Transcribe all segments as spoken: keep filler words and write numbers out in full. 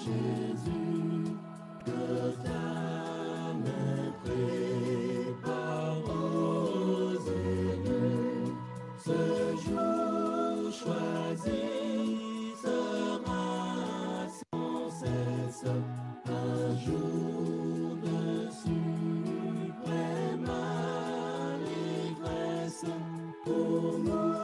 Jésus, que ta main prépare aux élus ce jour choisi sera sans cesse un jour de suprême allégresse pour nous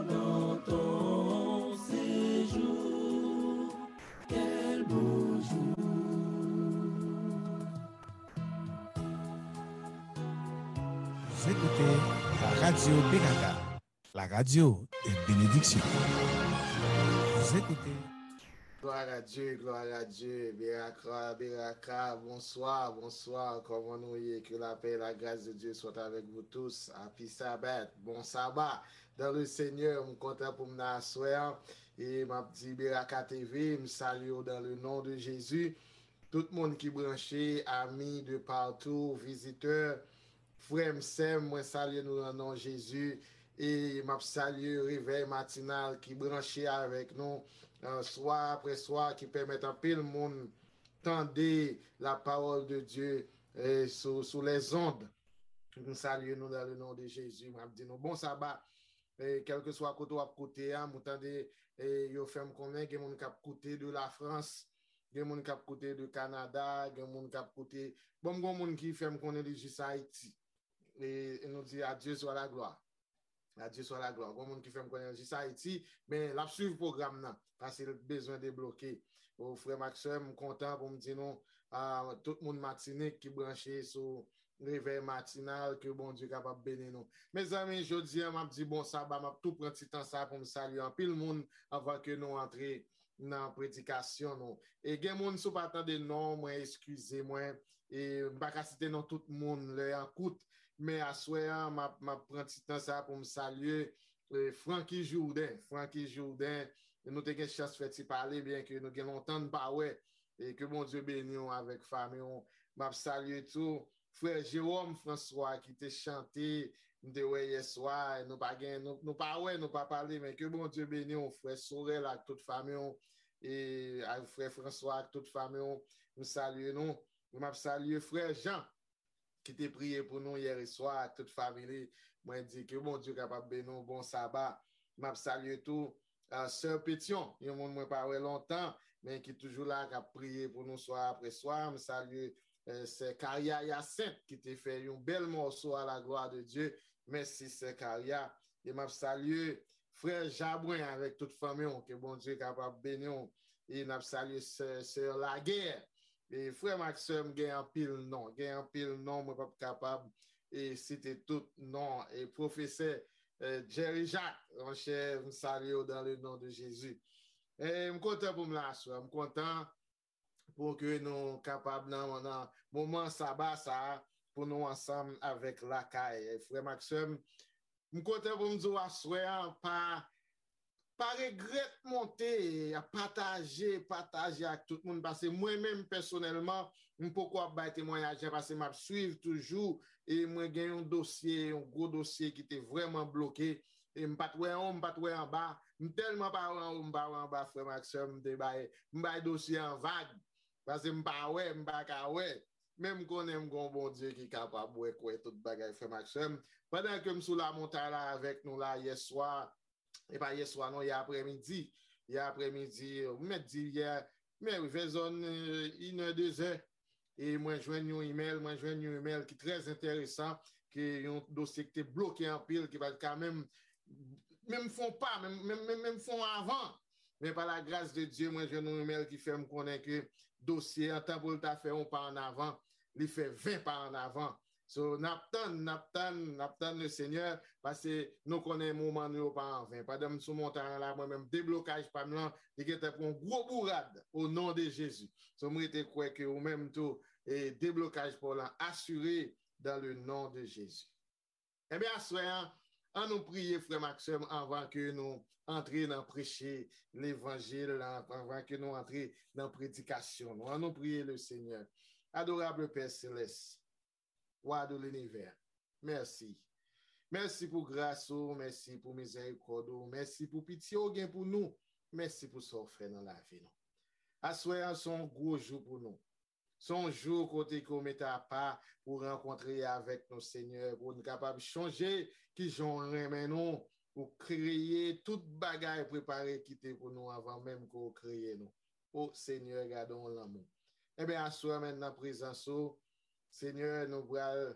dans ton séjour. Quel beau jour. Vous écoutez la radio Beraka, la radio de bénédiction. Vous écoutez. Gloire à Dieu, gloire à Dieu. Beraka, Beraka, bonsoir, bonsoir. Kòman nou ye? Que la paix et la grâce de Dieu soient avec vous tous. Happy Sabbath, bon sabbat dans le Seigneur. M kontan pou m nan aswè an. E m ap di Beraka T V, m salye w dans le nom de Jésus. Tout moun ki branche, ami de partout, vizitè, frè m, sè m, mwen salye nou nan non Jezi. E m ap salye Revèy Matinal ki branche avèk nou, eh, swa apre swa, ki pèmèt anpil moun tande la parole de Dieu, eh, sou, sou les ondes. M salye nou dans le nom de Jésus. M ap di nou bon saba. E, kèlkeswa kote w ap koute a, m tande, e, yo fè m konnen gen moun k ap koute de la Frans, gen moun k ap koute de Kanada, gen moun k ap koute, bon, m gon moun ki fè m konnen li jis Ayiti. E, e nou di, à Dieu soit la gloire. À Dieu soit la gloire. Gon moun ki fè m konnen l jis Ayiti, men l ap swiv pwogram nan, paske l bezwen debloke. O, frè m ak sè m, m kontan pou m di nou, a, tout moun Matinik ki branche sou Revèy Matinal, ke Bondye kapab beni nou. Mezanmi, jodi a, m ap di bon saba, m ap tou pran ti tan sa pou m salye anpil moun anvan ke nou antre nan predikasyon nou. E gen moun, si w pa tande non mwen, eskize mwen, e m pa ka site non tout moun, lè an kout, men aswè an, m ap, m ap pran ti tan sa pou m salye, e, Francky Jourdain. Francky Jourdain, nou te gen chans fè ti pale, byen ke nou gen lontan n pa wè, e ke Bondye beni w avèk fanmi w. M ap salye tou frè Jérôme François ki te chante, m te wè yè swa, nou pa gen, nou, nou pa wè, nou pa pale, men ke Bondye beni w, frè Sorel ak tout fanmi w, e ak frè François ak tout fanmi w, m salye nou. M ap salye frè Jean, ki te priye pou nou yè swa ak tout fanmi li. Mwen di ke Bondye kapab beni w, bon saba. M ap salye tou, ah, sè Petyon, yon moun mwen pa wè lontan, men ki toujou la, k ap priye pou nou swa apre swa. M salye, eh, sè Karia Yasent, ki te fè yon bèl mòso à la gloire de Dieu. Mèsi, sè Karia. E m ap salye frè Jabwen avèk tout fanmi w, ke Bondye kapab beni w. E n ap salye sè, sè Laguerre. E frè m ak sè m, gen anpil non, gen anpil non, mwen p ap kapab, e, site tout non. E pwofesè, e, Jerry Jacques, monchè, m salye w dans le nom de Jésus. E m kontan pou m la aswè, m kontan pou ke nou kapab nan, nan moman saba sa a, pou nou ansanm avèk lakay. E frè m ak sè m, m kontan pou m di w aswè an, pa, pa regrèt monte, pataje, pataje ak tout moun, paske mwen menm pèsonèlman, m poko ap bay temwayaj la, paske m ap swiv toujou, e mwen gen yon dosye, yon gwo dosye ki te vrèman bloke, e m pa t wè anwo, m pa t wè anba, m tèlman pa wè anwo, m pa wè anba, frè m ak sè m, m te bay, m bay dosye an vag, paske m pa wè, m pa ka wè, men m konnen m gon Bondye ki kapab wè, kwè tout bagay, frè m ak sè m. Pandan ke m sou lamontay la avèk nou la yè swa, e pa yè swa non, yè aprèmidi. Yè aprèmidi, m mèt di yè, men wi, vè zòn, eh, inè, dezè. E mwen jwenn yon imèl, mwen jwenn yon imèl ki trè enteresan, ki yon dosye ki te bloke anpil, ki pa t ka menm, menm fè yon pa, menm, menm, menm, menm fè yon avan. Men pa la gras de Dye, mwen jwenn yon imèl ki fè m konnen ke dosye an, tan pou l ta fè yon pa an avan, li fè ven pa an avan. So, n ap tann, n ap tann, n ap tann le Senyè, paske nou konnen moman nou yo pa an ven. Pandan m sou montay an la, mwen menm, deblokaj pa m lan, li gentan pran yon gwo bourad, o non de Jezi. So, m rete kwè ke ou menm tou, e deblokaj pa w lan asire dans le nom de Jésus. Ebyen, aswè an, an nou priye, frè m ak sè m, anvan ke nou antre nan preche levanjil la, anvan ke nou antre nan predikasyon nou. An nou priye le Senyè. Adorable Père Céleste, Wa de linivè, mèsi. Mèsi pou gras ou, mèsi pou mizèrikòd ou, mèsi pou pitye ou gen pou nou, mèsi pou sa ou fè nan lavi nou. Aswè a se yon gwo jou pou nou. Se yon jou kote ke w mete apa pou w rankontre avèk nou, Senyè, pou n kapab chonje kijan w renmen nou, ou kreye tout bagay prepare kite pou nou anvan menm ke w kreye nou. O Senyè, gade yon lanmou. Ebyen, aswè a menm nan prezans ou, Senyè, nou pral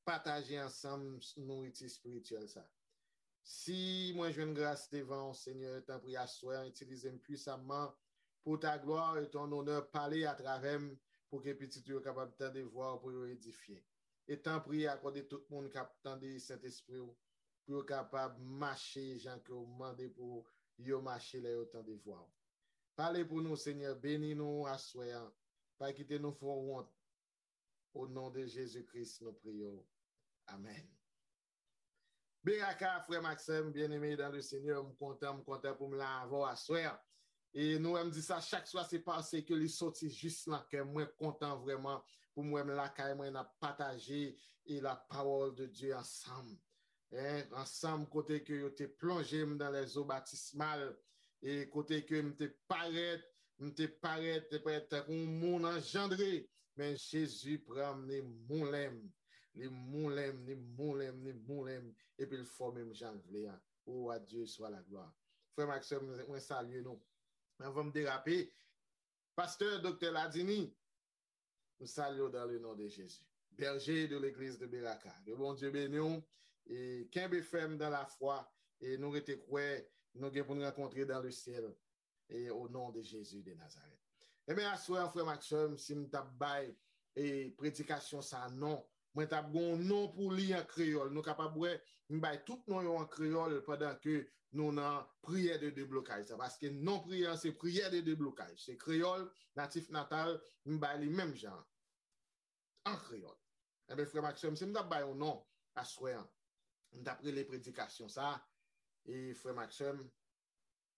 pataje ansanm nouriti espirityèl sa. Si mwen jwenn gras devan w, Senyè, tanpri aswè a, itilize m pwisamman pour ta gloire et ton honneur, pale atravè m pou ke pitit ou yo kapab tande vwa w, pou yo edifye. E tanpri akòde tout moun k ap tande Sentespri w, pou yo kapab mache jan ke w mande pou yo mache lè yo tande vwa w. Pale pou nou, Senyè, beni nou aswè a. Pa kite nou fè w wont. O non de Jezi Kris, nou priye w. Amèn. Beraka, frè m ak sè m, byeneme dan le Senyè, m kontan, m kontan pou m la avè w aswè a. E nou wè m di sa chak swa, se paske li soti jis nan kè m. Mwen kontan vrèman pou m wè m lakay mwen, n ap pataje e la parole de Dieu ansanm. Hein, ansanm kote ke yo te plonje m dans les eaux baptismales, e kote ke m te parèt, m te parèt, te parèt tankou yon moun anjandre, men Jezi pran m, li moulen m, li moulen m, li moulen m, li moulen m, epi l fòme m jan l vle a. Oh, à Dieu soit la gloire. Frè m ak sè m, mwen salye nou. Anvan m derape, pastè, doktè Ladini, m salye w dans le nom de Jésus. Berger de l'église de Beraka. Ke Bondye beni w e kenbe fèm dans la foi e nou rete kwè nou gen pou n rankontre dans le ciel e au nom de Jésus de Nazareth. Ebyen, aswè an, frè m ak sè m, si m t ap bay e predikasyon sa non, mwen t ap gen yon non pou li an kreyòl. Nou kapab wè, m bay tout non yo an kreyòl pandan ke nou nan priyè de deblokaj sa. Paske non priyè an se priyè de deblokaj. Se kreyòl, natif natal, m bay li menm jan an. An kreyòl. Ebyen, frè m ak sè m, si m t ap bay yon non aswè an, m t ap rele predikasyon sa, e frè m ak sè m,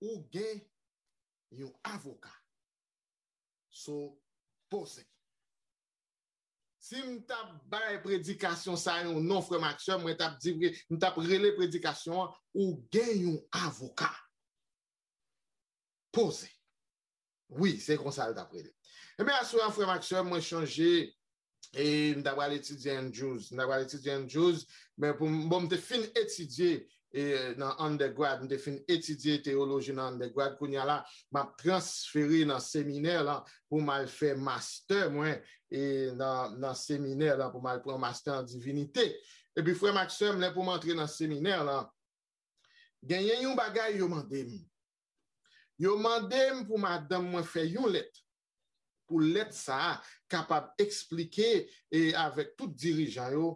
ou gen yon avoka. So, poze. Si m t ap bay predikasyon sa yon non, frè m ak sè m, mwen t ap di, m t ap rele predikasyon an, ou gen yon avoka. Poze. Wi, se konsa l t ap rele. Ebyen, aswè an, frè m ak sè m, mwen chonje, e m ta pral etidye Andrews. M ta pral etidye Andrews, men pou m, bon, m te fin etidye e nan undergrad, m te fin etidye teyoloji nan undergrad, kounye a la, m ap transfere nan seminè lan pou m al fè mastè mwen e nan, nan seminè lan, pou m al pran mastè an divinite. Epi frè m ak sè m, lè pou m antre nan seminè lan, genyen yon bagay yo mande m. Yo mande m pou madanm mwen fè yon lèt, pou lèt sa a kapab eksplike e avèk tout dirijan yo,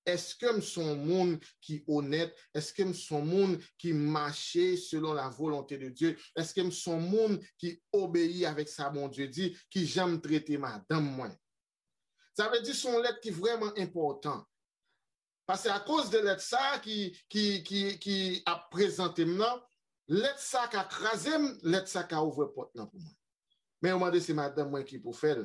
èske m se yon moun ki onèt, èske m se yon moun ki mache selon la volonte de Dye, èske m se yon moun ki obeyi avèk sa Bondye di, kijan m trete madanm mwen. Sa vle di se yon lèt ki vrèman enpòtan. Paske akoz de lèt sa ki, ki, ki, ki ap prezante m nan, lèt sa ka kraze m, lèt sa ka ouvè pòt lan pou mwen. Men yo mande se madanm mwen ki pou fè l.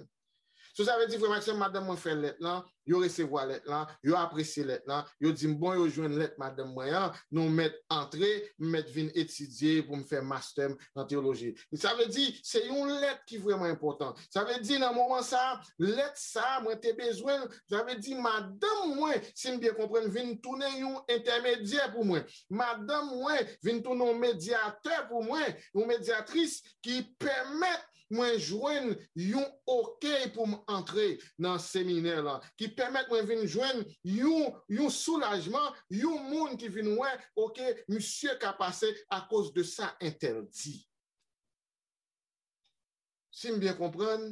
So sa vle di, frè m ak sè m, madanm mwen fè lèt lan, yo resevwa lèt lan, yo apresye lèt lan, yo di m, bon, yo jwenn lèt madanm mwen an, nou mèt antre, m mèt vin etidye pou m fè mastè m nan teyoloji. Sa vle di, se yon lèt ki vrèman enpòtan. Sa vle di, nan moman sa a, lèt sa a, mwen te bezwen l. Sa vle di, madanm mwen, si m byen konprann, vin tounen yon entèmedyè pou mwen. Madanm mwen vin tounen yon medyatè pou mwen, yon medyatris ki pèmèt mwen jwenn yon okey pou m antre nan seminè lan, ki pèmèt mwen vin jwenn yon, yon soulajman, yon moun ki vin wè, oke, misye ka pase akoz de sa entèl di. Si m byen konprann,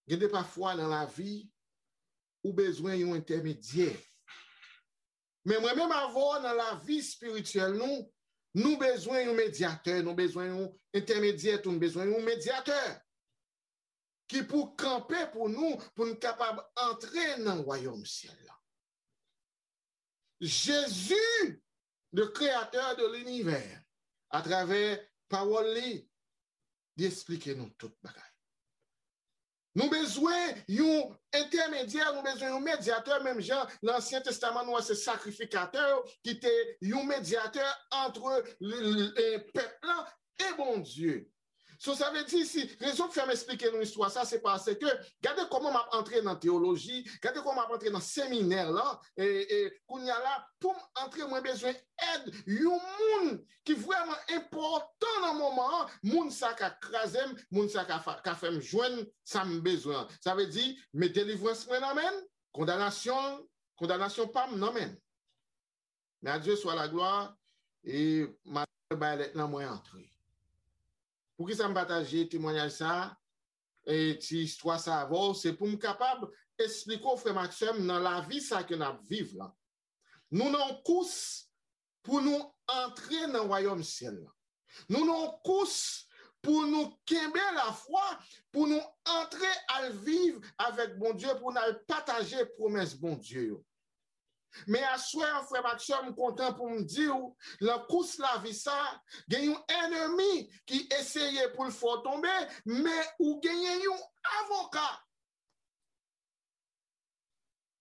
gen de pafwa nan lavi, ou bezwen yon entèmedyè. Men mwen menm avè w nan lavi espirityèl nou, nou bezwen yon medyatè, nou bezwen yon entèmedyè tou, nou bezwen yon medyatè ki pou kanpe pou nou, pou n kapab antre nan wayòm syèl la. Jezi, le créateur de l'univers, atravè pawòl li, li esplike nou tout bagay. Nou bezwen yon entèmedyè, nou bezwen yon medyatè, menm jan nan Ansyen Testaman nou wè se sakrifikatè yo ki te yon medyatè antre l-, l-, e pèp lan e Bondye. So, sa vle di, si rezon k fè m esplike nou istwa sa, se paske gade kòman m ap antre nan teyoloji, gade kòman m ap antre nan seminè lan, e, e kounye a la, pou m antre, mwen bezwen èd yon moun ki vrèman enpòtan nan moman an, moun sa ka kraze m, moun sa ka, fa- ka fè m jwenn sa m bezwen an. Sa vle di, men delivrans mwen nan men l, kondanasyon, kondanasyon pa m nan men l. Men a Dye swa laglwa, e m al bay lèt lan, mwen antre. Poukisa m pataje temwayaj sa, e ti istwa sa avè w, se pou m kapab esplike w, frè m ak sè m, nan lavi sa ke n ap viv lan. Nou nan yon kous pou nou antre nan wayòm syèl lan. Nou nan yon kous pou nou kenbe lafwa, pou nou antre al viv avèk Bondye, pou n al pataje pwomès Bondye yo. Men aswè an, frè m ak sè m, m kontan pou m di w, lan kous lavi sa, gen yon ènmi ki eseye pou l fè w tonbe, men ou genyen yon avoka.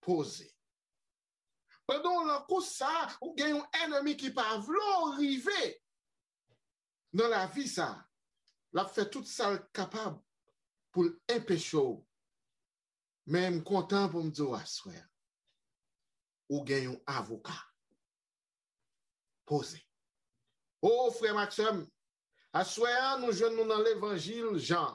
Poze. Pandan w lan kous sa, ou gen yon ènmi ki pa vle w rive nan lavi sa. L ap fè tout sa l kapab pou l enpeche w. Men m kontan pou m di w aswè a, ou gen yon avoka. Poze. O, frè m ak sè m, aswè a, nou jwenn nou nan levanjil Jan.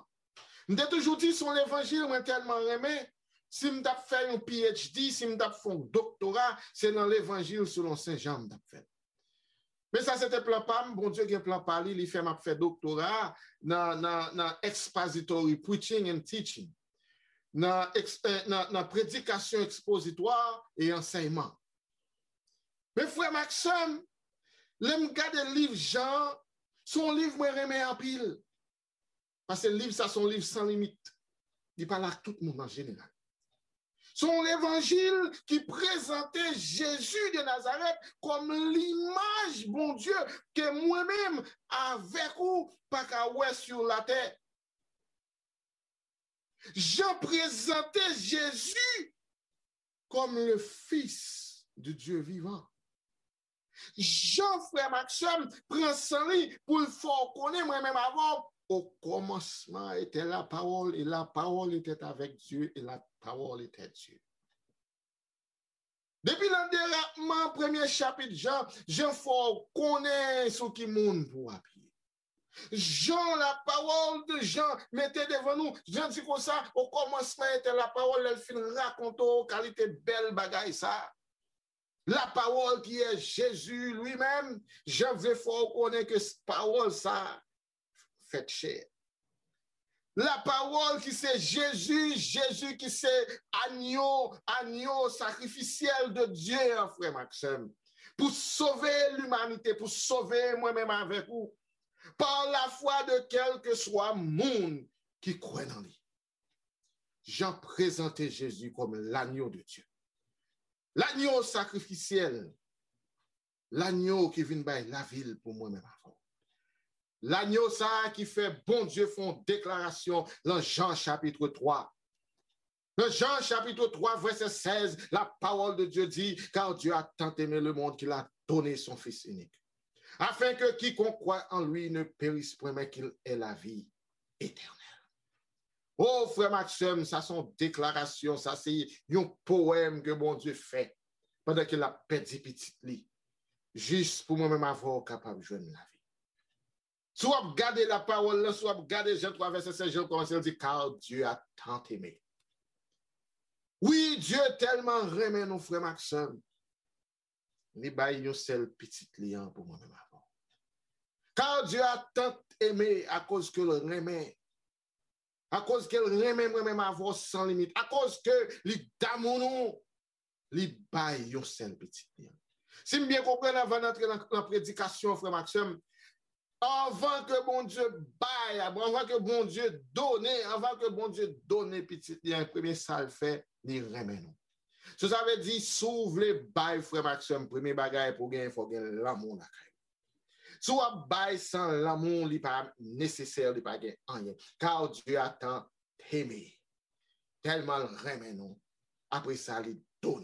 M te toujou di se yon levanjil mwen tèlman renmen, si m t ap fè yon P H D, si m t ap fè yon doktora, se nan levanjil selon Sen Jan m t ap fè l. Men sa se te plan pa m, Bondye gen plan pa li, li fè m ap fè doktora nan, nan, nan expository preaching and teaching, nan, eks- eh, nan, nan predikasyon ekspozitwa e ansèyman. Men frè m ak sè m, lè m gade liv Jan an, se yon liv mwen renmen anpil. Paske liv sa se yon liv san limit. Li pale ak tout moun an jeneral. Se yon levanjil ki prezante Jezi de Nazarèt kòm limaj Bondye ke mwen menm avèk ou pa ka wè sou latè. Jan prezante Jezi comme le Fils du Dieu vivant. Jan, frè m ak sè m, pran san li pou l fè w konnen mwen menm avè w, au commencement était la parole, et la parole était avec Dieu, et la parole était Dieu. Depi nan derapman premye chapit Jan, Jan fè w konnen sou ki moun pou w apiye. Jan, la parole de Jan mete devan nou, Jan di konsa, au commencement était la parole, lè l fin rakonte w kalite bèl bagay sa. La parole qui est Jésus lui-même, Jan vle fè w konnen ke pawòl sa fèt chè. La parole qui c'est Jésus, Jésus qui c'est agneau, agneau sacrificiel de Dieu, frè m ak sè m, pou sove limanite, pou sove mwen menm avèk ou, par la foi de kèlkeswa moun ki kwè nan li. Jan prezante Jezi kòm l'agneau de Dieu. L'agneau sacrificiel, l'agneau ki vin bay lavi l pou mwen menm avè w. L'agneau sa a ki fè Bondye fè yon deklarasyon lan Jan chapit twa. Dans Jean chapitre trois, verset seize, la parole de Dieu dit, car Dieu a tant aimé le monde qu'il a donné son Fils unique, afin que quiconque croit en lui ne périsse point, mais qu'il ait la vie éternelle. O frè m ak sè m, sa se yon deklarasyon, sa se yon powèm ke Bondye fè pandan ke l ap pèdi pitit li, jis pou mwen menm avè w kapab jwenn lavi. Si w ap gade lapawòl la, si w ap gade Jan twa vèsè sèz, Jan kòmanse, l di, car Dieu a tant aimé. Wi, Dye tèlman renmen nou, frè m ak sè m, li bay yon sèl pitit li an pou mwen menm avè w. Car Dieu a tant aimé, akoz ke l renmen, akoz ke l renmen mwen menm avè w san limit, akoz ke li damou nou, li bay yon sèl pitit li an. Si m byen konprann, anvan n antre nan, nan predikasyon, frè m ak sè m, anvan ke Bondye bay, anvan ke Bondye donnen, anvan ke Bondye donnen pitit li an, premye sa l fè, li renmen nou. So sa vle di, si w vle bay, frè m ak sè m, premye bagay pou w genyen, fò w gen lanmou lakay ou. Si w ap bay san lanmou, li pa nesesè, li pa gen anyen. Car Dieu a tant aimé. Tèlman l renmen nou. Apre sa, li